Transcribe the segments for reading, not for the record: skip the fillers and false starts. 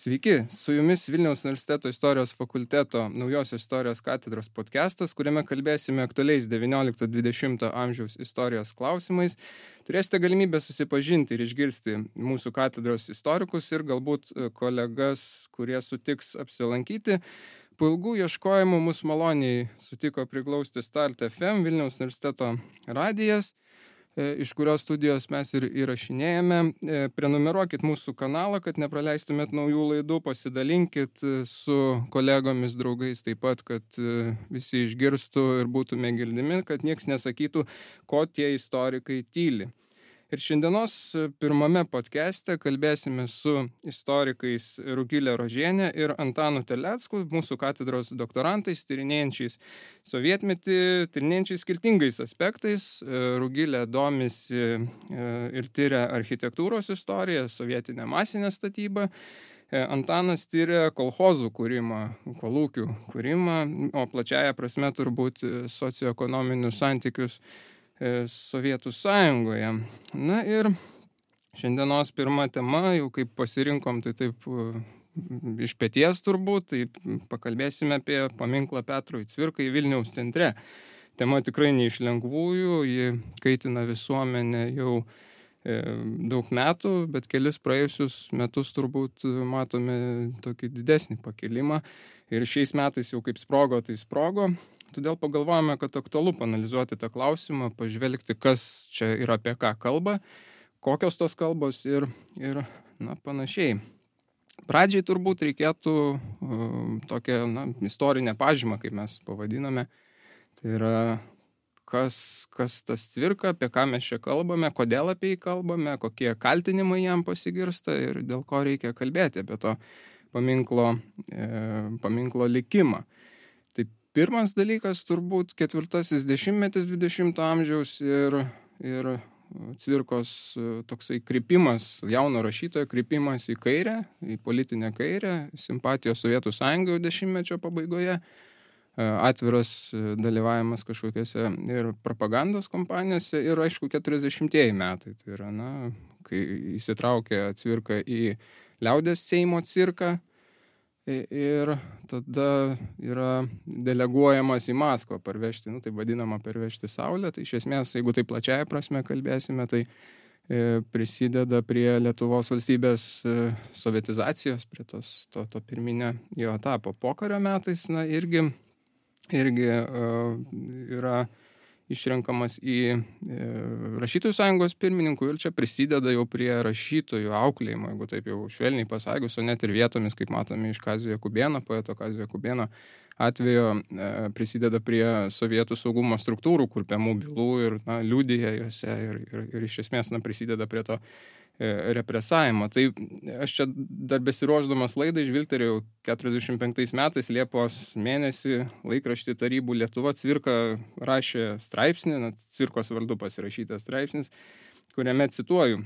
Sveiki, su jumis Vilniaus universiteto istorijos fakulteto naujosios istorijos katedros podcastas, kuriame kalbėsime aktualiais 19-20 amžiaus istorijos klausimais. Turėsite galimybę susipažinti ir išgirsti mūsų katedros istorikus ir galbūt kolegas, kurie sutiks apsilankyti. Po ilgų ieškojimų mus maloniai sutiko priglausti Start FM, Vilniaus universiteto radijas, iš kurios studijos mes ir įrašinėjame. Prenumeruokit mūsų kanalą, kad nepraleistumėt naujų laidų, pasidalinkit su kolegomis, draugais taip pat, kad visi išgirstų ir būtume girdimi, kad nieks nesakytų, ko tie istorikai tyli. Ir šiandienos pirmame podcast'e kalbėsime su istorikais Rugilė Rožienė ir Antanu Terlecku, mūsų katedros doktorantais, tyrinėjančiais sovietmetį, tyrinėjančiais skirtingais aspektais. Rugilė domisi ir tyria architektūros istoriją, sovietinę masinę statybą. Antanas tyria kolchozų kūrimą, kolūkių kūrimą, o plačiaja prasme turbūt socioekonominius santykius Sovietų Sąjungoje. Na ir šiandienos pirma tema, jau kaip pasirinkom, tai taip iš peties turbūt, tai pakalbėsime apie paminklą Petrui Cvirkai Vilniaus centre. Tema tikrai ne iš lengvųjų, ji kaitina visuomenę jau daug metų, bet kelis praėjusius metus turbūt matome tokį didesnį pakilimą. Ir šiais metais jau kaip sprogo, tai sprogo. Todėl pagalvojame, kad aktualu panalizuoti tą klausimą, pažvelgti, kas čia ir apie ką kalba, kokios tos kalbos ir panašiai. Pradžiai turbūt reikėtų tokią istorinę pažymą, kaip mes pavadiname. Tai yra, kas tas Cvirka, apie ką mes čia kalbame, kodėl apie jį kalbame, kokie kaltinimai jam pasigirsta ir dėl ko reikia kalbėti apie to paminklo likimą. Pirmas dalykas turbūt 4 dešimtmetis 20 amžiaus ir Cvirkos toksai krypimas, jauno rašytojo krypimas į kairę, į politinę kairę, simpatijos Sovietų Sąjungoje dešimtmečio pabaigoje, atviras dalyvavimas kažkokiose ir propagandos kompanijose ir aišku 40-ieji metai. Tai yra, kai įsitraukė Cvirka į Liaudies Seimo cirką, ir tada yra deleguojamas į Maskvą parvežti, tai vadinama parvežti saulę. Tai iš esmės, jeigu tai plačiaja prasme kalbėsime, tai prisideda prie Lietuvos valstybės sovietizacijos, prie to pirminio jo etapo. Pokario metais irgi yra išrenkamas į Rašytojų sąjungos pirmininkų ir čia prisideda jau prie rašytojų auklėjimo, jeigu taip jau švelniai pasakius, o net ir vietomis, kaip matome iš Kazio Jakubėno, poeto Kazio Jakubėno atvejo, prisideda prie sovietų saugumo struktūrų kurpiamų bylų ir liudija juose ir iš esmės prisideda prie to represavimo. Tai aš čia dar besiruošdamas laidai žvilgterėjau 45 metais Liepos mėnesį laikraštį Tarybų Lietuva Cvirka rašė straipsnį, Cvirkos vardu pasirašytas straipsnis, kuriame cituoju,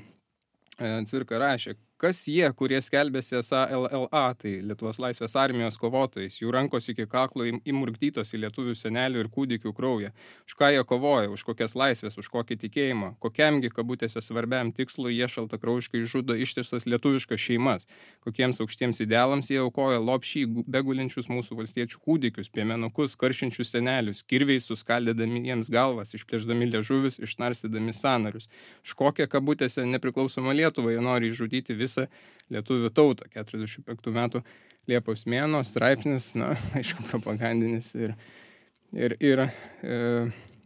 Cvirka rašė, kas jie, kurie skelbėsi esą LLA, tai Lietuvos laisvės armijos kovotojais, jų rankos iki kaklo įmurkdytos į lietuvių senelių ir kūdikių kraują. Už ką jie kovoja, už kokias laisvės, už kokį tikėjimą, kokiamgi kabutėse svarbiam tikslui jie šaltakraujiškai žudo ištisas lietuviškas šeimas, kokiems aukštiems idealams jie aukoja lopšį begulinčius mūsų valstiečių kūdikius, piemenukus, karšinčius senelius, kirviais suskaldydami jiems galvas, išplėšdami liežuvius, išnarstydami sąnarius. Už kokią kabutėse nepriklausomą Lietuvą jie nori išžudyti visą lietuvių tautą. 45 metų Liepos mėnuo, straipsnis, aišku, propagandinis ir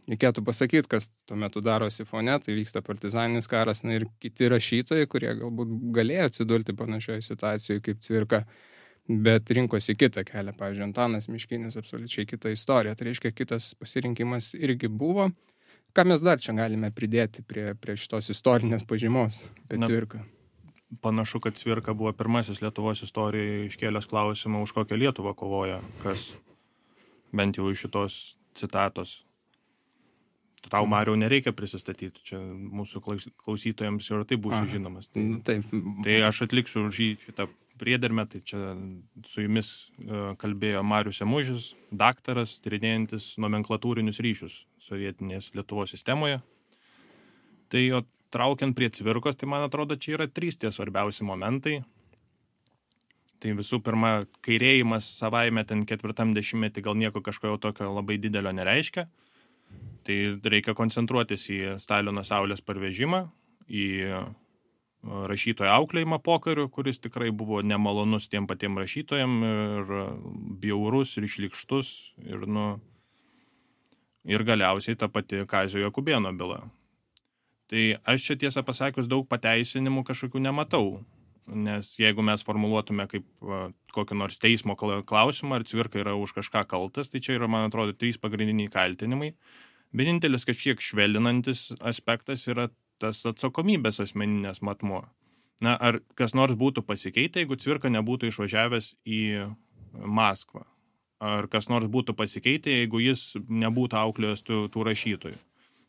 reikėtų pasakyti, kas tuo metu darosi fone, tai vyksta partizaninis karas, ir kiti rašytojai, kurie galbūt galėjo atsidurti panašioje situacijoje kaip Cvirka, bet rinkosi kitą kelią. Pavyzdžiui, Antanas Miškinis absoliučiai kita istorija, tai reiškia kitas pasirinkimas irgi buvo. Ką mes dar čia galime pridėti prie šitos istorinės pažymos apie Cvirką? Panašu, kad Cvirka buvo pirmasis Lietuvos istorijoje iškėlęs klausimą, už kokią Lietuvą kovoja, kas bent jau iš šitos citatos. Tau, Mariau, nereikia prisistatyti, čia mūsų klausytojams jau tai būsiu žinomas. Tai aš atliksiu už šitą priedermę, tai čia su jumis kalbėjo Marius Emužis, daktaras, tyrinėjantis nomenklatūrinius ryšius sovietinės Lietuvos sistemoje. Tai jo traukiant prie Cvirkos, tai man atrodo, čia yra 3 tie svarbiausi momentai. Tai visų pirma, kairėjimas savaime ten 40-metį gal nieko kažko tokio labai didelio nereiškia. Tai reikia koncentruotis į Stalino saulės parvežimą, į rašytojo auklėjimą pokariu, kuris tikrai buvo nemalonus tiem patiem rašytojam ir bjaurus ir šlykštus ir galiausiai ta pati Kazio Jakubėno byla. Tai aš čia tiesą pasakius daug pateisinimų kažkokių nematau. Nes jeigu mes formuluotume kaip kokį nors teismo klausimą, ar Cvirka yra už kažką kaltas, tai čia yra, man atrodo, 3 pagrindiniai kaltinimai. Vienintelis kažkiek švelninantis aspektas yra tas atsakomybės asmeninės matmuo. Na, ar kas nors būtų pasikeitę, jeigu Cvirka nebūtų išvažiavęs į Maskvą? Ar kas nors būtų pasikeitę, jeigu jis nebūtų auklėjęs tų rašytojų?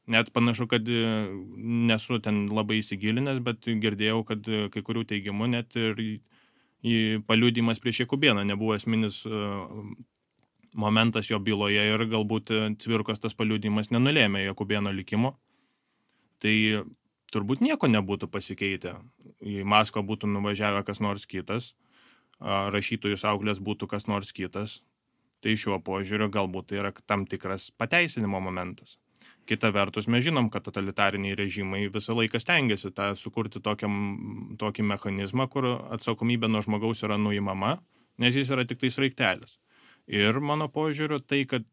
Net panašu, kad nesu ten labai įsigilinęs, bet girdėjau, kad kai kurių teigimų net ir paliudijimas prieš Jakubėną nebuvo esminis momentas jo byloje ir galbūt Cvirkos tas paliudijimas nenulėmė Jakubėno likimo. Tai turbūt nieko nebūtų pasikeitę. Į Maskvą būtų nuvažiavę kas nors kitas, rašytojus auklės būtų kas nors kitas. Tai šiuo požiūriu galbūt tai yra tam tikras pateisinimo momentas. Kita vertus, mes žinom, kad totalitariniai režimai visą laiką stengiasi sukurti tokį mechanizmą, kur atsakomybė nuo žmogaus yra nuimama, nes jis yra tik tai sraigtelis. Ir mano požiūriu, tai, kad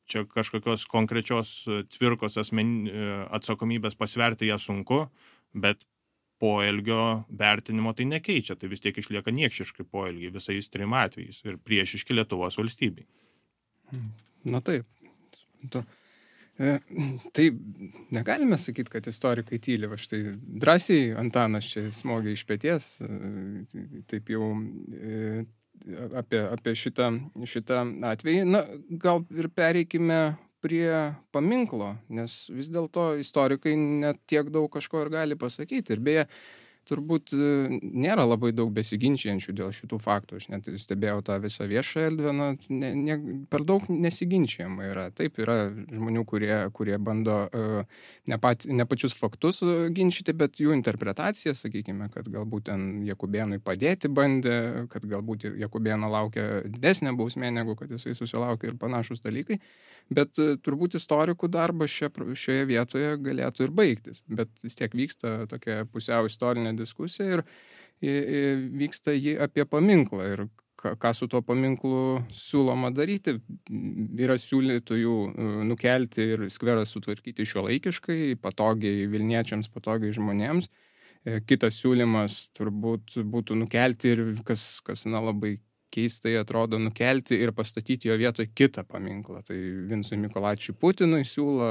čia kažkokios konkrečios Cvirkos atsakomybės pasverti ją sunku, bet poelgio vertinimo tai nekeičia, tai vis tiek išlieka niekšiškai poelgiai visais 3 atvejais ir priešiški Lietuvos valstybei. Na taip. Tai negalime sakyti, kad istorikai tyli, va štai drąsiai Antanas čia smogė iš peties, taip jau apie šitą atvejį. Na, gal ir pereikime prie paminklo, nes vis dėlto istorikai net tiek daug kažko ir gali pasakyti. Ir beje, turbūt nėra labai daug besiginčiančių dėl šitų faktų. Aš net stebėjau tą visą viešą erdvę, per daug nesiginčiama yra. Taip, yra žmonių, kurie bando ne pačius faktus ginčyti, bet jų interpretaciją, sakykime, kad galbūt ten Jakubėnui padėti bandė, kad galbūt Jakubėno laukia didesnė bausmė, negu kad jisai susilaukė ir panašus dalykai. Bet turbūt istorikų darbas šioje vietoje galėtų ir baigtis. Bet vis tiek vyksta tokia pusiau istorinė diskusija ir vyksta ji apie paminklą. Ir ką su tuo paminklu siūloma daryti. Yra siūlytojų nukelti ir skverą sutvarkyti šiuolaikiškai, patogiai Vilniečiams, patogiai žmonėms. Kitas siūlymas turbūt būtų nukelti ir kas labai keistai atrodo, nukelti ir pastatyti jo vietoje kitą paminklą. Tai Vincui Mykolaičiui Putinui siūlo,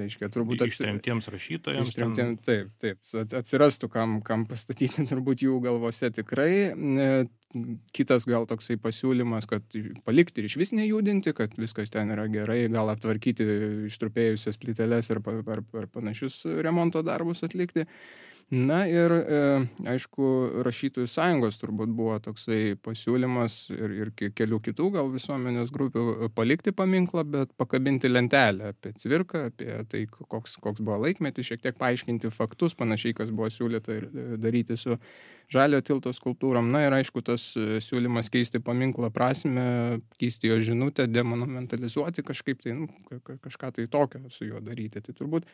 reiškia, turbūt ištremtiems rašytojams. Taip, atsirastų kam pastatyti turbūt jų galvose tikrai. Kitas gal toksai pasiūlymas, kad palikti ir išvis nejudinti, kad viskas ten yra gerai, gal aptvarkyti ištrupėjusias plyteles ir panašius remonto darbus atlikti. Na ir, aišku, Rašytojų sąjungos turbūt buvo toksai pasiūlymas ir kelių kitų gal visuomenės grupių palikti paminklą, bet pakabinti lentelę apie Cvirką, apie tai, koks buvo laikmetis, šiek tiek paaiškinti faktus, panašiai, kas buvo siūlyta ir daryti su Žaliojo tilto skulptūrom. Na ir, aišku, tas siūlymas keisti paminklą prasmę, keisti jo žinutę, demonumentalizuoti kažkaip tai, kažką tai tokio su juo daryti. Tai turbūt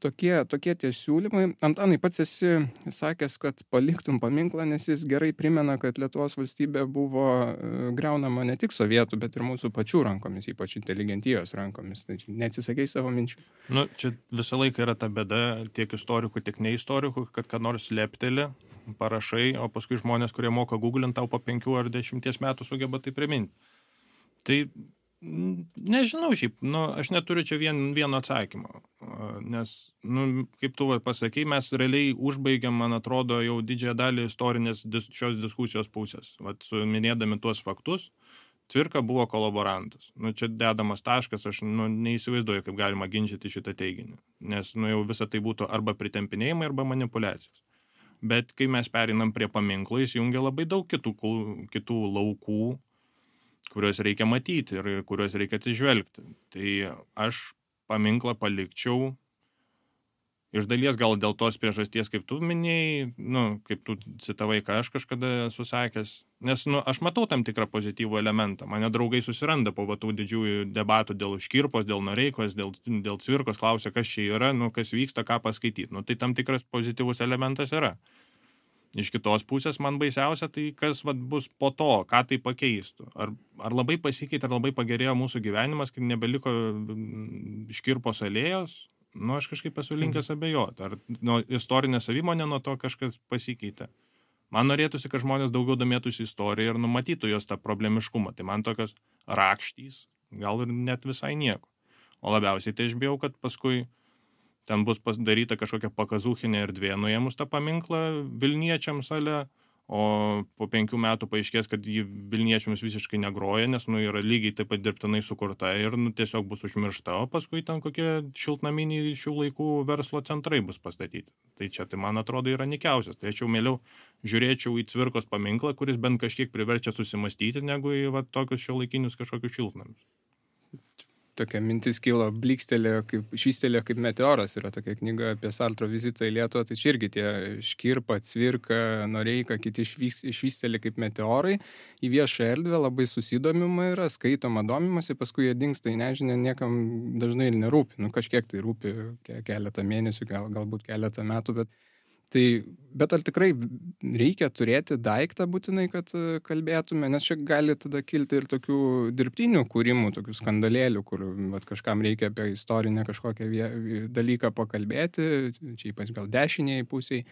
tokie tie siūlymai. Antanai, pats esi sakęs, kad paliktum paminklą, nes jis gerai primena, kad Lietuvos valstybė buvo griaunama ne tik sovietų, bet ir mūsų pačių rankomis, ypač inteligentijos rankomis. Tai neatsisakei savo minčių? Čia visą laiką yra ta bėda tiek istorikų, tiek neistorikų, kad ką nors lepteli, parašai, o paskui žmonės, kurie moka googlinti, tau po 5 ar 10 metų sugeba tai priminti. Tai nežinau šiaip, aš neturiu čia vieno atsakymo, nes, kaip tu pasakei, mes realiai užbaigiam, man atrodo, jau didžiąją dalį istorinės šios diskusijos pusės. Minėdami tuos faktus, Cvirka buvo kolaborantas. Čia dedamas taškas, aš neįsivaizduoju, kaip galima ginčyti šitą teiginį, nes jau visą tai būtų arba pritempinėjimai, arba manipulacijos. Bet kai mes pereinam prie paminklo, jis jungia labai daug kitų laukų, kuriuos reikia matyti ir kuriuos reikia atsižvelgti. Tai aš paminklą palikčiau Iš dalies gal dėl tos priežasties, kaip tu minėjai, kaip tu citavai, ką aš kažkada esu sakęs, nes aš matau tam tikrą pozityvų elementą. Mane draugai susiranda po tų didžiųjų debatų dėl Škirpos, dėl Noreikos, dėl Cvirkos, klausia, kas čia yra, kas vyksta, ką paskaityti. Tai tam tikras pozityvus elementas yra. Iš kitos pusės man baisiausia, tai kas bus po to, ką tai pakeistų. Ar labai pasikeitė, ar labai pagerėjo mūsų gyvenimas, kai nebeliko Škirpos alėjos? Aš kažkaip esu linkęs abejoti. Ar istorinė savimonė nuo to kažkas pasikeitė. Man norėtųsi, kad žmonės daugiau domėtųsi istoriją ir numatytų jos tą problemiškumą. Tai man tokios rakštys, gal ir net visai nieko. O labiausiai tai aš bijau, kad paskui ten bus daryta kažkokia pakazūchinė erdvė nuėmus tą paminklą Vilniečiams ale, o po 5 metų paaiškės, kad jį Vilniečiams visiškai negroja, nes yra lygiai taip pat dirbtinai sukurta ir tiesiog bus užmiršta, o paskui ten kokie šiltnaminiai šių laikų verslo centrai bus pastatyti. Tai čia, tai man atrodo, yra nikiausias. Tai aš jau mieliau žiūrėčiau į Cvirkos paminklą, kuris bent kažkiek priverčia susimastyti, negu į tokius šiuolaikinius kažkokius šiltnamius. Tokia mintis kilo, švystelėjo kaip meteoras, yra tokia knyga apie Sartro vizitą į Lietuvą, tai čia irgi tie Škirpa, Cvirka, Noreika, kiti švystelė kaip meteorai į viešą erdvę, labai susidomima yra, skaitoma, domimasi, paskui jie dingsta į nežinę, niekam dažnai nerūpi, kažkiek tai rūpi keletą mėnesių, galbūt keletą metų, bet ar tikrai reikia turėti daiktą būtinai, kad kalbėtume, nes čia gali tada kilti ir tokių dirbtinių kūrimų, tokių skandalėlių, kur kažkam reikia apie istorinę kažkokią dalyką pakalbėti, čia ypač gal dešiniai pusiai,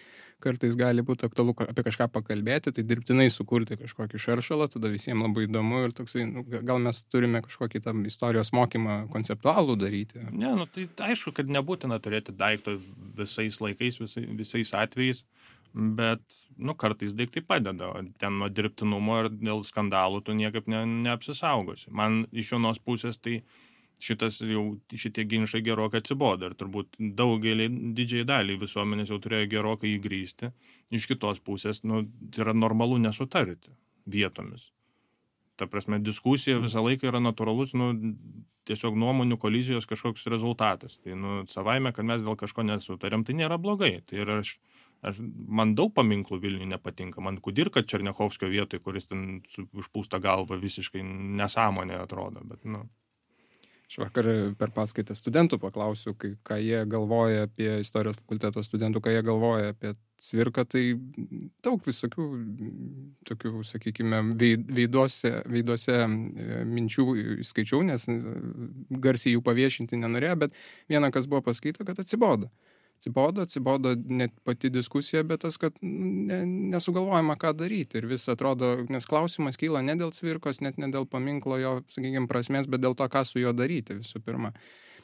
kartais gali būti aktualu apie kažką pakalbėti, tai dirbtinai sukurti kažkokį šaršalą, tada visiems labai įdomu ir toksai, gal mes turime kažkokį tam istorijos mokymą konceptualų daryti. Ne, tai aišku, kad nebūtina turėti daikto visais laikais, visais atvejais, bet kartais daiktai padeda, ten nuo dirbtinumo ir dėl skandalų tu niekaip neapsisaugosi. Man iš vienos pusės tai šitie ginčai gerokai atsibodo ir turbūt didžiai daliai visuomenės jau turėjo gerokai įgrįsti. Iš kitos pusės, yra normalu nesutarti vietomis. Ta prasme, diskusija visą laiką yra natūralus, tiesiog nuomonių kolizijos kažkoks rezultatas. Tai, savaime, kad mes dėl kažko nesutarėm, tai nėra blogai. Tai yra, man daug paminklų Vilniuje nepatinka. Man Kudirka Černiachovskio vietoj, kuris ten užpūsta galva visiškai nesąmonė atrodo, bet, Aš vakar per paskaitą studentų paklausiu, ką jie galvoja apie istorijos fakulteto studentų, ką jie galvoja apie Cvirką, tai daug visokių tokių, sakykime, veiduose minčių skaičiau, nes garsiai jų paviešinti nenorėjo, bet viena, kas buvo paskaita, kad atsibodo net pati diskusija, bet tas, kad nesugalvojama, ką daryti. Ir vis atrodo, nes klausimas kyla ne dėl Cvirkos, net ne dėl paminklo jo, sakykime, prasmės, bet dėl to, ką su juo daryti visų pirma.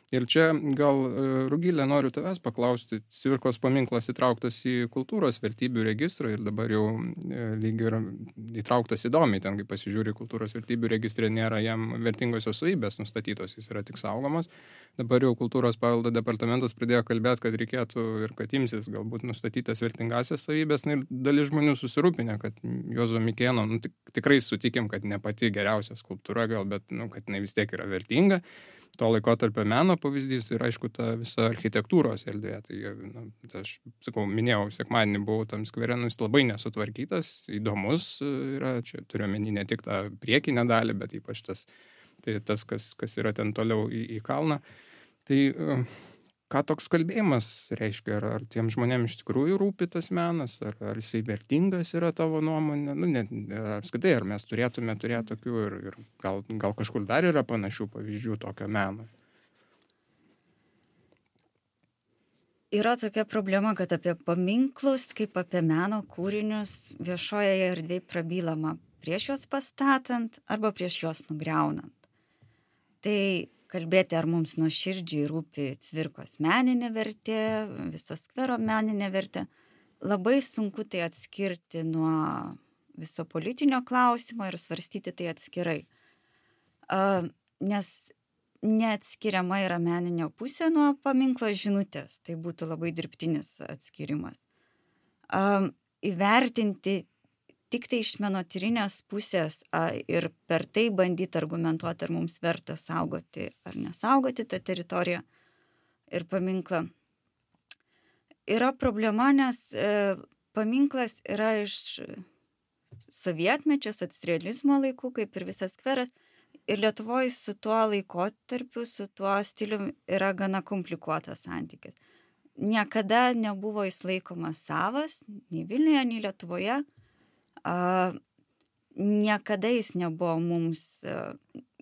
Ir čia gal, Rugilė, noriu tavęs paklausti, Cvirkos paminklas įtrauktas į kultūros vertybių registrą ir dabar jau lyg ir įtrauktas įdomiai, ten, kai pasižiūri kultūros vertybių registrė, nėra jam vertingosios savybės nustatytos, jis yra tik saugomas. Dabar jau kultūros paveldo departamentas pradėjo kalbėti, kad reikėtų ir kad imsis galbūt nustatytas vertingasias savybės, ir dalis žmonių susirūpinę, kad Juozo Mikėno, tikrai sutikim, kad ne pati geriausia skulptūra gal, bet, kad jinai vis tiek yra vertinga. To laikotarpio meno pavyzdys ir, aišku, ta visa architektūros erdvė. Tai aš, minėjau, sekmadienį buvau tam skvere, jis labai nesutvarkytas, įdomus yra, čia turiu omeny ne tik tą priekinę dalį, bet ypač tas, kas yra ten toliau į kalną. Tai ką toks kalbėjimas reiškia? Ar tiem žmonėms iš tikrųjų rūpi tas menas, ar jisai vertingas yra tavo nuomonė? Apskritai, ar mes turėtume turėti tokių ir gal kažkur dar yra panašių pavyzdžių tokio meno? Yra tokia problema, kad apie paminklus, kaip apie meno kūrinius viešoje erdvėje prabylama prieš juos pastatant arba prieš juos nugriaunant. Tai kalbėti, ar mums nuoširdžiai rūpi Cvirkos meninė vertė, viso skvero meninė vertė, labai sunku tai atskirti nuo viso politinio klausimo ir svarstyti tai atskirai. Nes neatskiriama yra meninė pusė nuo paminklo žinutės, tai būtų labai dirbtinis atskirimas. Įvertinti tik tai iš menotyrinės pusės ir per tai bandyti argumentuoti, ar mums verta saugoti ar nesaugoti tą teritoriją ir paminklą. yra problema, nes paminklas yra iš sovietmečio, socrealizmo laikų, kaip ir visas skveras. Ir Lietuvoje su tuo laikotarpiu, su tuo stiliumi yra gana komplikuotas santykis. Niekada nebuvo jis laikomas savas, nei Vilniuje, nei Lietuvoje. Niekada jis nebuvo mums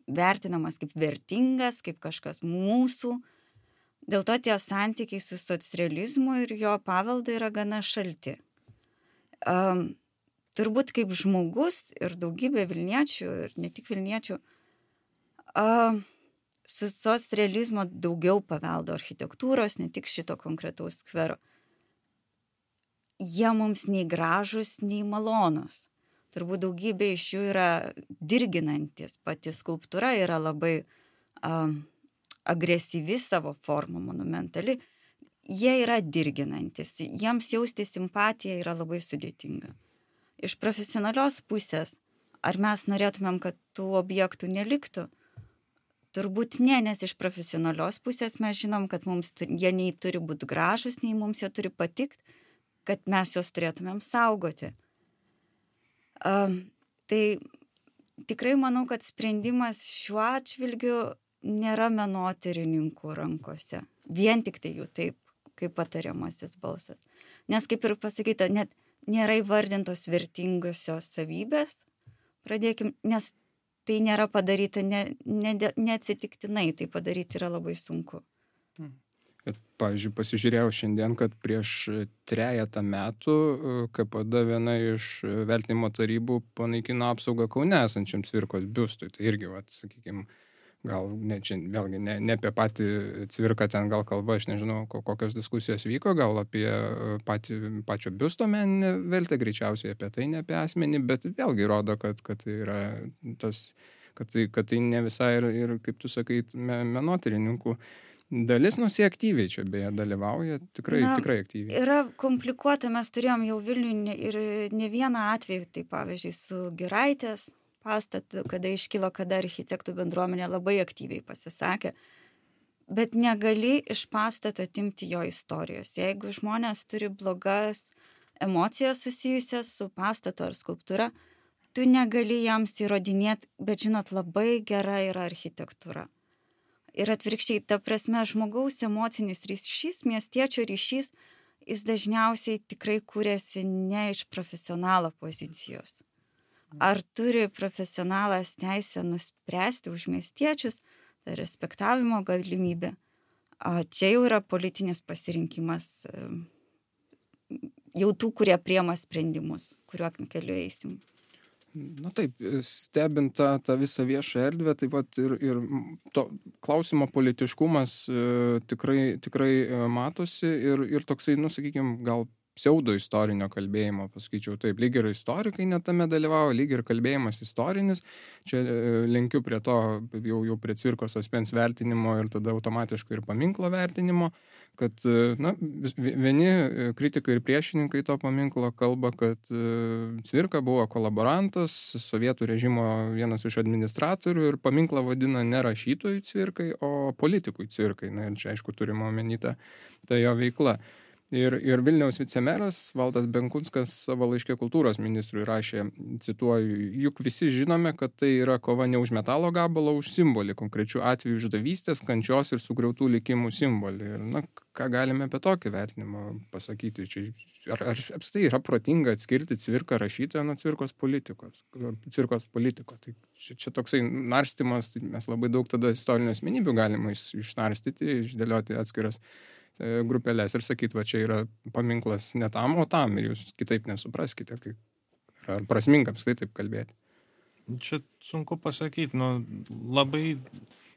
vertinamas kaip vertingas, kaip kažkas mūsų. Dėl to tie santykiai su socrealizmu ir jo paveldu yra gana šalti. Turbūt kaip žmogus ir daugybė Vilniečių, ir ne tik Vilniečių, su socrealizmo daugiau paveldo architektūros, ne tik šito konkretaus skvero. Jie mums nei gražus, nei malonus. Turbūt daugybė iš jų yra dirginantis. Pati skulptūra yra labai agresyvi savo forma, monumentali. Jie yra dirginantis. Jiems jausti simpatiją yra labai sudėtinga. Iš profesionalios pusės, ar mes norėtumėm, kad tų objektų neliktų? Turbūt ne, nes iš profesionalios pusės mes žinom, kad mums jie nei turi būti gražus, nei mums jie turi patikti, kad mes juos turėtumėm saugoti. Tai tikrai manau, kad sprendimas šiuo atžvilgiu nėra menotyrininkų rankose. Vien tik tai jų taip, kaip patariamasis balsas. Nes kaip ir pasakyta, net nėra įvardintos vertingosios savybės. Pradėkim, nes tai nėra padaryta neatsitiktinai, tai padaryti yra labai sunku. Ir, pavyzdžiui, pasižiūrėjau šiandien, kad prieš 3 metų KPD viena iš vertinimo tarybų panaikino apsaugą Kaune esančiam Cvirkos biustui. Tai irgi, sakykime, gal vėlgi ne apie patį Cvirką ten gal kalba, aš nežinau, kokios diskusijos vyko, gal apie pačio biusto meninę vertę, greičiausiai apie tai, ne apie asmenį, bet vėlgi rodo, kad tai yra tas, kad tai ne visai ir kaip tu sakai, menotyrininkų dalis, jie aktyviai čia beje dalyvauja, tikrai aktyviai. Yra komplikuota, mes turėjom jau Vilniuje ir ne vieną atvejį, tai pavyzdžiui su Giraitės pastatu, kada iškilo, kada architektų bendruomenė labai aktyviai pasisakė, bet negali iš pastato atimti jo istorijos. Jeigu žmonės turi blogas emocijas susijusias su pastatu ar skulptūra, tu negali jiems įrodinėti, bet žinot, labai gera yra architektūra. Ir atvirkščiai, ta prasme, žmogaus emocinis ryšys, miestiečio ryšys, jis dažniausiai tikrai kūrėsi ne iš profesionalo pozicijos. Ar turi profesionalas teisę nuspręsti už miestiečius, tai respektavimo galimybė. Čia jau yra politinis pasirinkimas jau tų, kurie priema sprendimus, kuriuo keliu eisim. Na taip, stebint tą visą viešą erdvę, taip pat ir to klausimo politiškumas tikrai matosi ir toksai, sakykime, gal pseudo istorinio kalbėjimo, pasakyčiau taip, lyg ir istorikai netame dalyvavo, lyg ir kalbėjimas istorinis. Čia lenkiu prie to, jau prie Cvirkos asmens vertinimo ir tada automatiškai ir paminklo vertinimo, kad vieni kritikai ir priešininkai to paminklo kalba, kad Cvirka buvo kolaborantas, sovietų režimo vienas iš administratorių ir paminklą vadina ne rašytojui Cvirkai, o politikui Cvirkai. Na ir čia aišku turime omeny ta jo veikla. Ir Vilniaus vicemeras Valdas Benkunskas savo laiške kultūros ministrui rašė, cituoju, juk visi žinome, kad tai yra kova ne už metalo gabalą, už simbolį, konkrečių atvejų išdavystės, kančios ir sugriautų likimų simbolį. Ir ką galime apie tokį vertinimą pasakyti? Ar apskritai yra protinga atskirti Cvirką rašytoją nuo Cvirkos politiko? Tai čia toksai narstymas, tai mes labai daug tada istorinių asmenybių galima išnarstyti, išdėlioti atskiras grupelės ir sakyti, čia yra paminklas ne tam, o tam, ir jūs kitaip nesupraskite, ar prasminga apskritai taip kalbėti. Čia sunku pasakyti, labai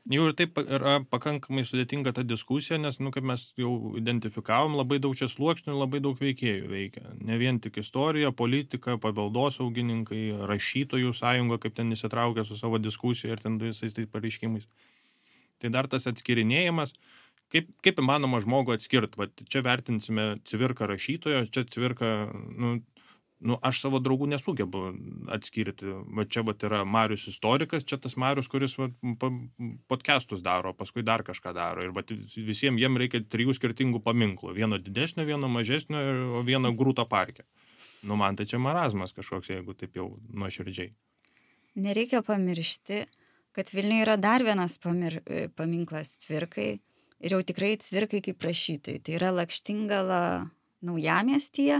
jau ir taip yra pakankamai sudėtinga ta diskusija, nes, kaip mes jau identifikavom, labai daug čia sluoksnių, labai daug veikėjų veikia. Ne vien tik istorija, politika, paveldosaugininkai, rašytojų sąjunga, kaip ten įsitraukia su savo diskusija ir ten visais tai pareiškimais. Tai dar tas atskirinėjimas, kaip įmanoma žmogų atskirti. Čia vertinsime Cvirką rašytojo, čia Cvirką aš savo draugų nesugebu atskirti. Va čia yra Marius istorikas, čia tas Marius, kuris podcastus daro, paskui dar kažką daro. Ir visiems jiem reikia 3 skirtingų paminklų. Vieno didesnio, vieno mažesnio, o vieno grūto parke. Man tai čia marazmas kažkoks, jeigu taip jau nuoširdžiai. Nereikia pamiršti, kad Vilniuje yra dar vienas paminklas Cvirkai. Ir jau tikrai Cvirkai kaip rašytojai. Tai yra Lakštingala Naujamiestyje.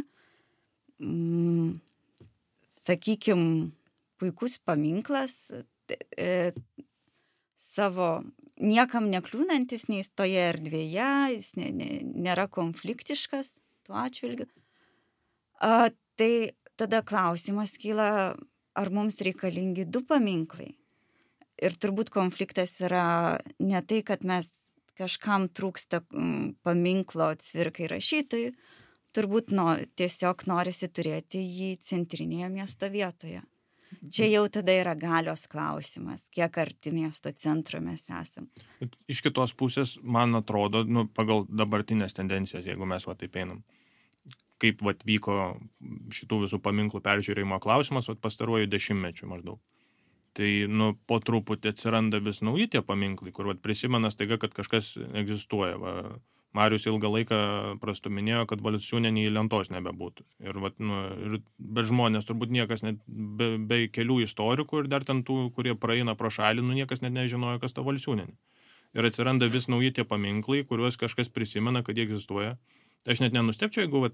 Sakykim, puikus paminklas, savo niekam nekliūnantis nei toje erdvėje, jis nėra konfliktiškas tuo atžvilgiu. Tai tada klausimas kyla, ar mums reikalingi 2 paminklai. Ir turbūt konfliktas yra ne tai, kad mes kažkam trūksta paminklo Cvirkai rašytojui, turbūt tiesiog norisi turėti jį centrinėje miesto vietoje. Čia jau tada yra galios klausimas, kiek arti miesto centro mes esam. Iš kitos pusės, man atrodo, pagal dabartinės tendencijas, jeigu mes taip einam, kaip vyko šitų visų paminklų peržiūrėjimo klausimas pastaruoju 10-mečiu maždaug. Tai po truputį atsiranda vis nauji tie paminklai, kur prisimena staiga, kad kažkas egzistuoja. Marius ilgą laiką prastuminėjo, kad Valsiūnienė į lentos nebebūtų. Ir be žmonės, turbūt niekas, net be kelių istorikų ir dar ten tų, kurie praeina pro šalį, niekas net nežinojo, kas ta Valsiūnienė. Ir atsiranda vis nauji tie paminklai, kuriuos kažkas prisimena, kad jie egzistuoja. Aš net nenustepčiau, jeigu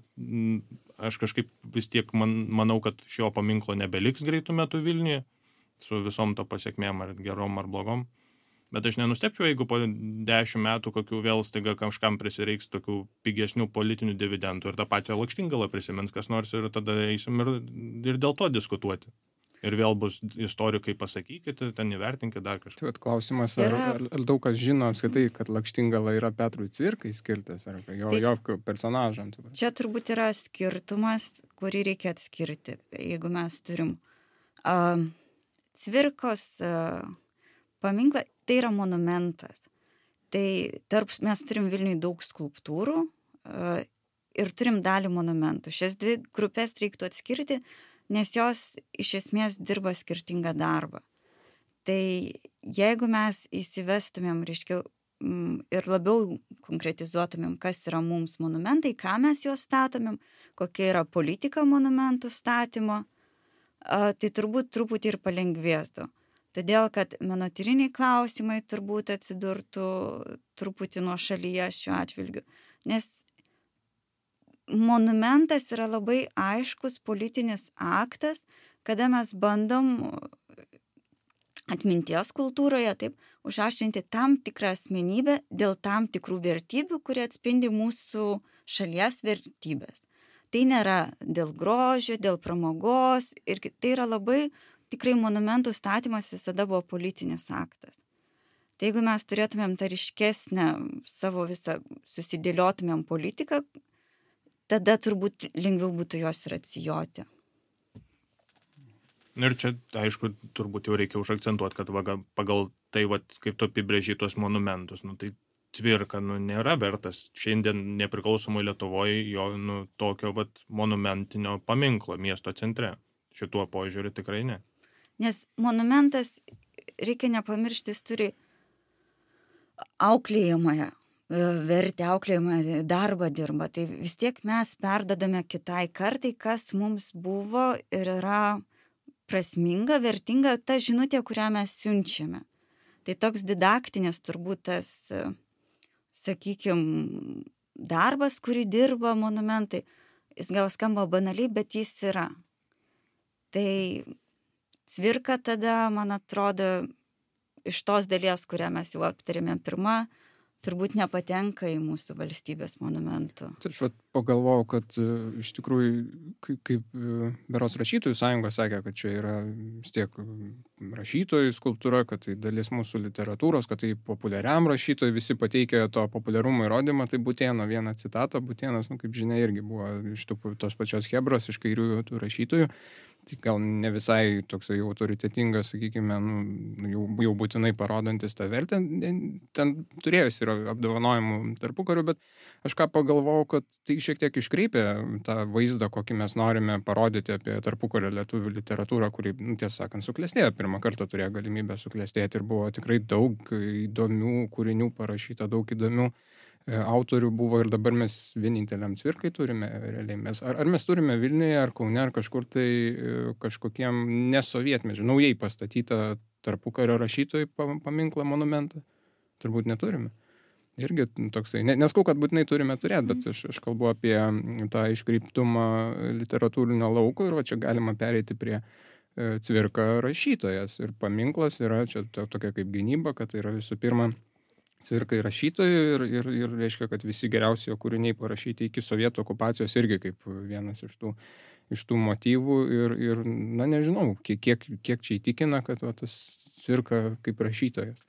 aš kažkaip vis tiek manau, kad šio paminklo nebeliks greitų metų Vilniuje, su visom to pasiekmėm ar gerom ar blogom. Bet aš nenustepčiau, jeigu po 10 metų kokių vėl staiga kažkam prisireiks tokių pigesnių politinių dividendų ir tą pačią Lakštingalą prisimins kas nors ir tada eisim ir dėl to diskutuoti. Ir vėl bus istorikai pasakykite, ten įvertinkite dar kažką. Tai klausimas, ar daug kas žino apskritai, kad Lakštingala yra Petrui Cvirkai skirtas, ar jo personažam. Čia turbūt yra skirtumas, kurį reikia atskirti. Jeigu mes turim Cvirkos paminklą, tai yra monumentas. Tai mes turim Vilniuje daug skulptūrų ir turim dalį monumentų. Šias 2 grupės reiktų atskirti, nes jos iš esmės dirba skirtingą darbą. Tai jeigu mes įsivestumėm, ir labiau konkretizuotumėm, kas yra mums monumentai, ką mes juos statomėm, kokia yra politika monumentų statymo, tai turbūt truputį ir palengvėtų. Todėl, kad menotyriniai klausimai turbūt atsidurtų truputį nuošalyje šiuo atžvilgiu. Nes monumentas yra labai aiškus politinis aktas, kada mes bandom atminties kultūroje užaštrinti tam tikrą asmenybę dėl tam tikrų vertybių, kurie atspindi mūsų šalies vertybės. Tai nėra dėl grožio, dėl pramogos ir tai yra labai tikrai monumentų statymas visada buvo politinis aktas. Tai jeigu mes turėtumėm tą ryškesnę savo visą susidėliotumėm politiką, tada turbūt lengviau būtų jos ir atsijoti. Ir čia, aišku, turbūt jau reikia užakcentuoti, kad pagal tai, kaip tu apibrėži tuos monumentus, tai Cvirka nėra vertas šiandien nepriklausomoj Lietuvoje jo tokio monumentinio paminklo miesto centre. Šituo požiūriu tikrai ne. Nes monumentas, reikia nepamiršti, jis turi auklėjamąją vertę, auklėjamąją darbą dirba. Tai vis tiek mes perdodame kitai kartai, kas mums buvo ir yra prasminga, vertinga ta žinutė, kurią mes siunčiame. Tai toks didaktinis turbūt tas, sakykime, darbas, kurį dirba monumentai, jis gal skamba banaliai, bet jis yra. Tai Cvirka tada, man atrodo, iš tos dalies, kurią mes jau aptarėme pirmą, turbūt nepatenka į mūsų valstybės monumentų. Tai aš pagalvojau, kad iš tikrųjų, kaip berods rašytojų sąjunga sakė, kad čia yra vis tiek rašytojų skulptūra, kad tai dalis mūsų literatūros, kad tai populiariam rašytojui, visi pateikia to populiarumo įrodymą, tai Butėno vieną citatą, Butėnas, kaip žinia, irgi buvo iš tos pačios chebros, iš kairiųjų tų rašytojų. tai gal ne visai toksai autoritetingas, sakykime, jau būtinai parodantis tą vertę. Ten turėjus yra apdovanojimų tarpukariu, bet aš ką pagalvojau, kad tai šiek tiek iškreipia tą vaizdą, kokį mes norime parodyti apie tarpukario lietuvių literatūrą, kuri, tiesą sakant, suklestėjo. Pirmą kartą turėjo galimybę suklestėti ir buvo tikrai daug įdomių kūrinių parašyta, daug įdomių autorių buvo ir dabar mes vieninteliam Cvirkai turime realiai. Ar mes turime Vilniuje, ar Kaune, ar kažkur tai kažkokiem nesovietmečiu, naujai pastatytą tarpukario rašytojų paminklą, monumentą? Turbūt neturime. Irgi toksai, neskau, kad būtinai turime turėti, bet aš kalbu apie tą iškreiptumą literatūrinio lauko ir va čia galima pereiti prie Cvirka rašytojas. Ir paminklas yra čia tokia kaip gynyba, kad tai yra visų pirma Cvirkai rašytojų ir reiškia, kad visi geriausi jo kūriniai parašyti iki sovietų okupacijos irgi kaip vienas iš tų motyvų ir nežinau, kiek čia įtikina, kad tas Cvirka kaip rašytojas.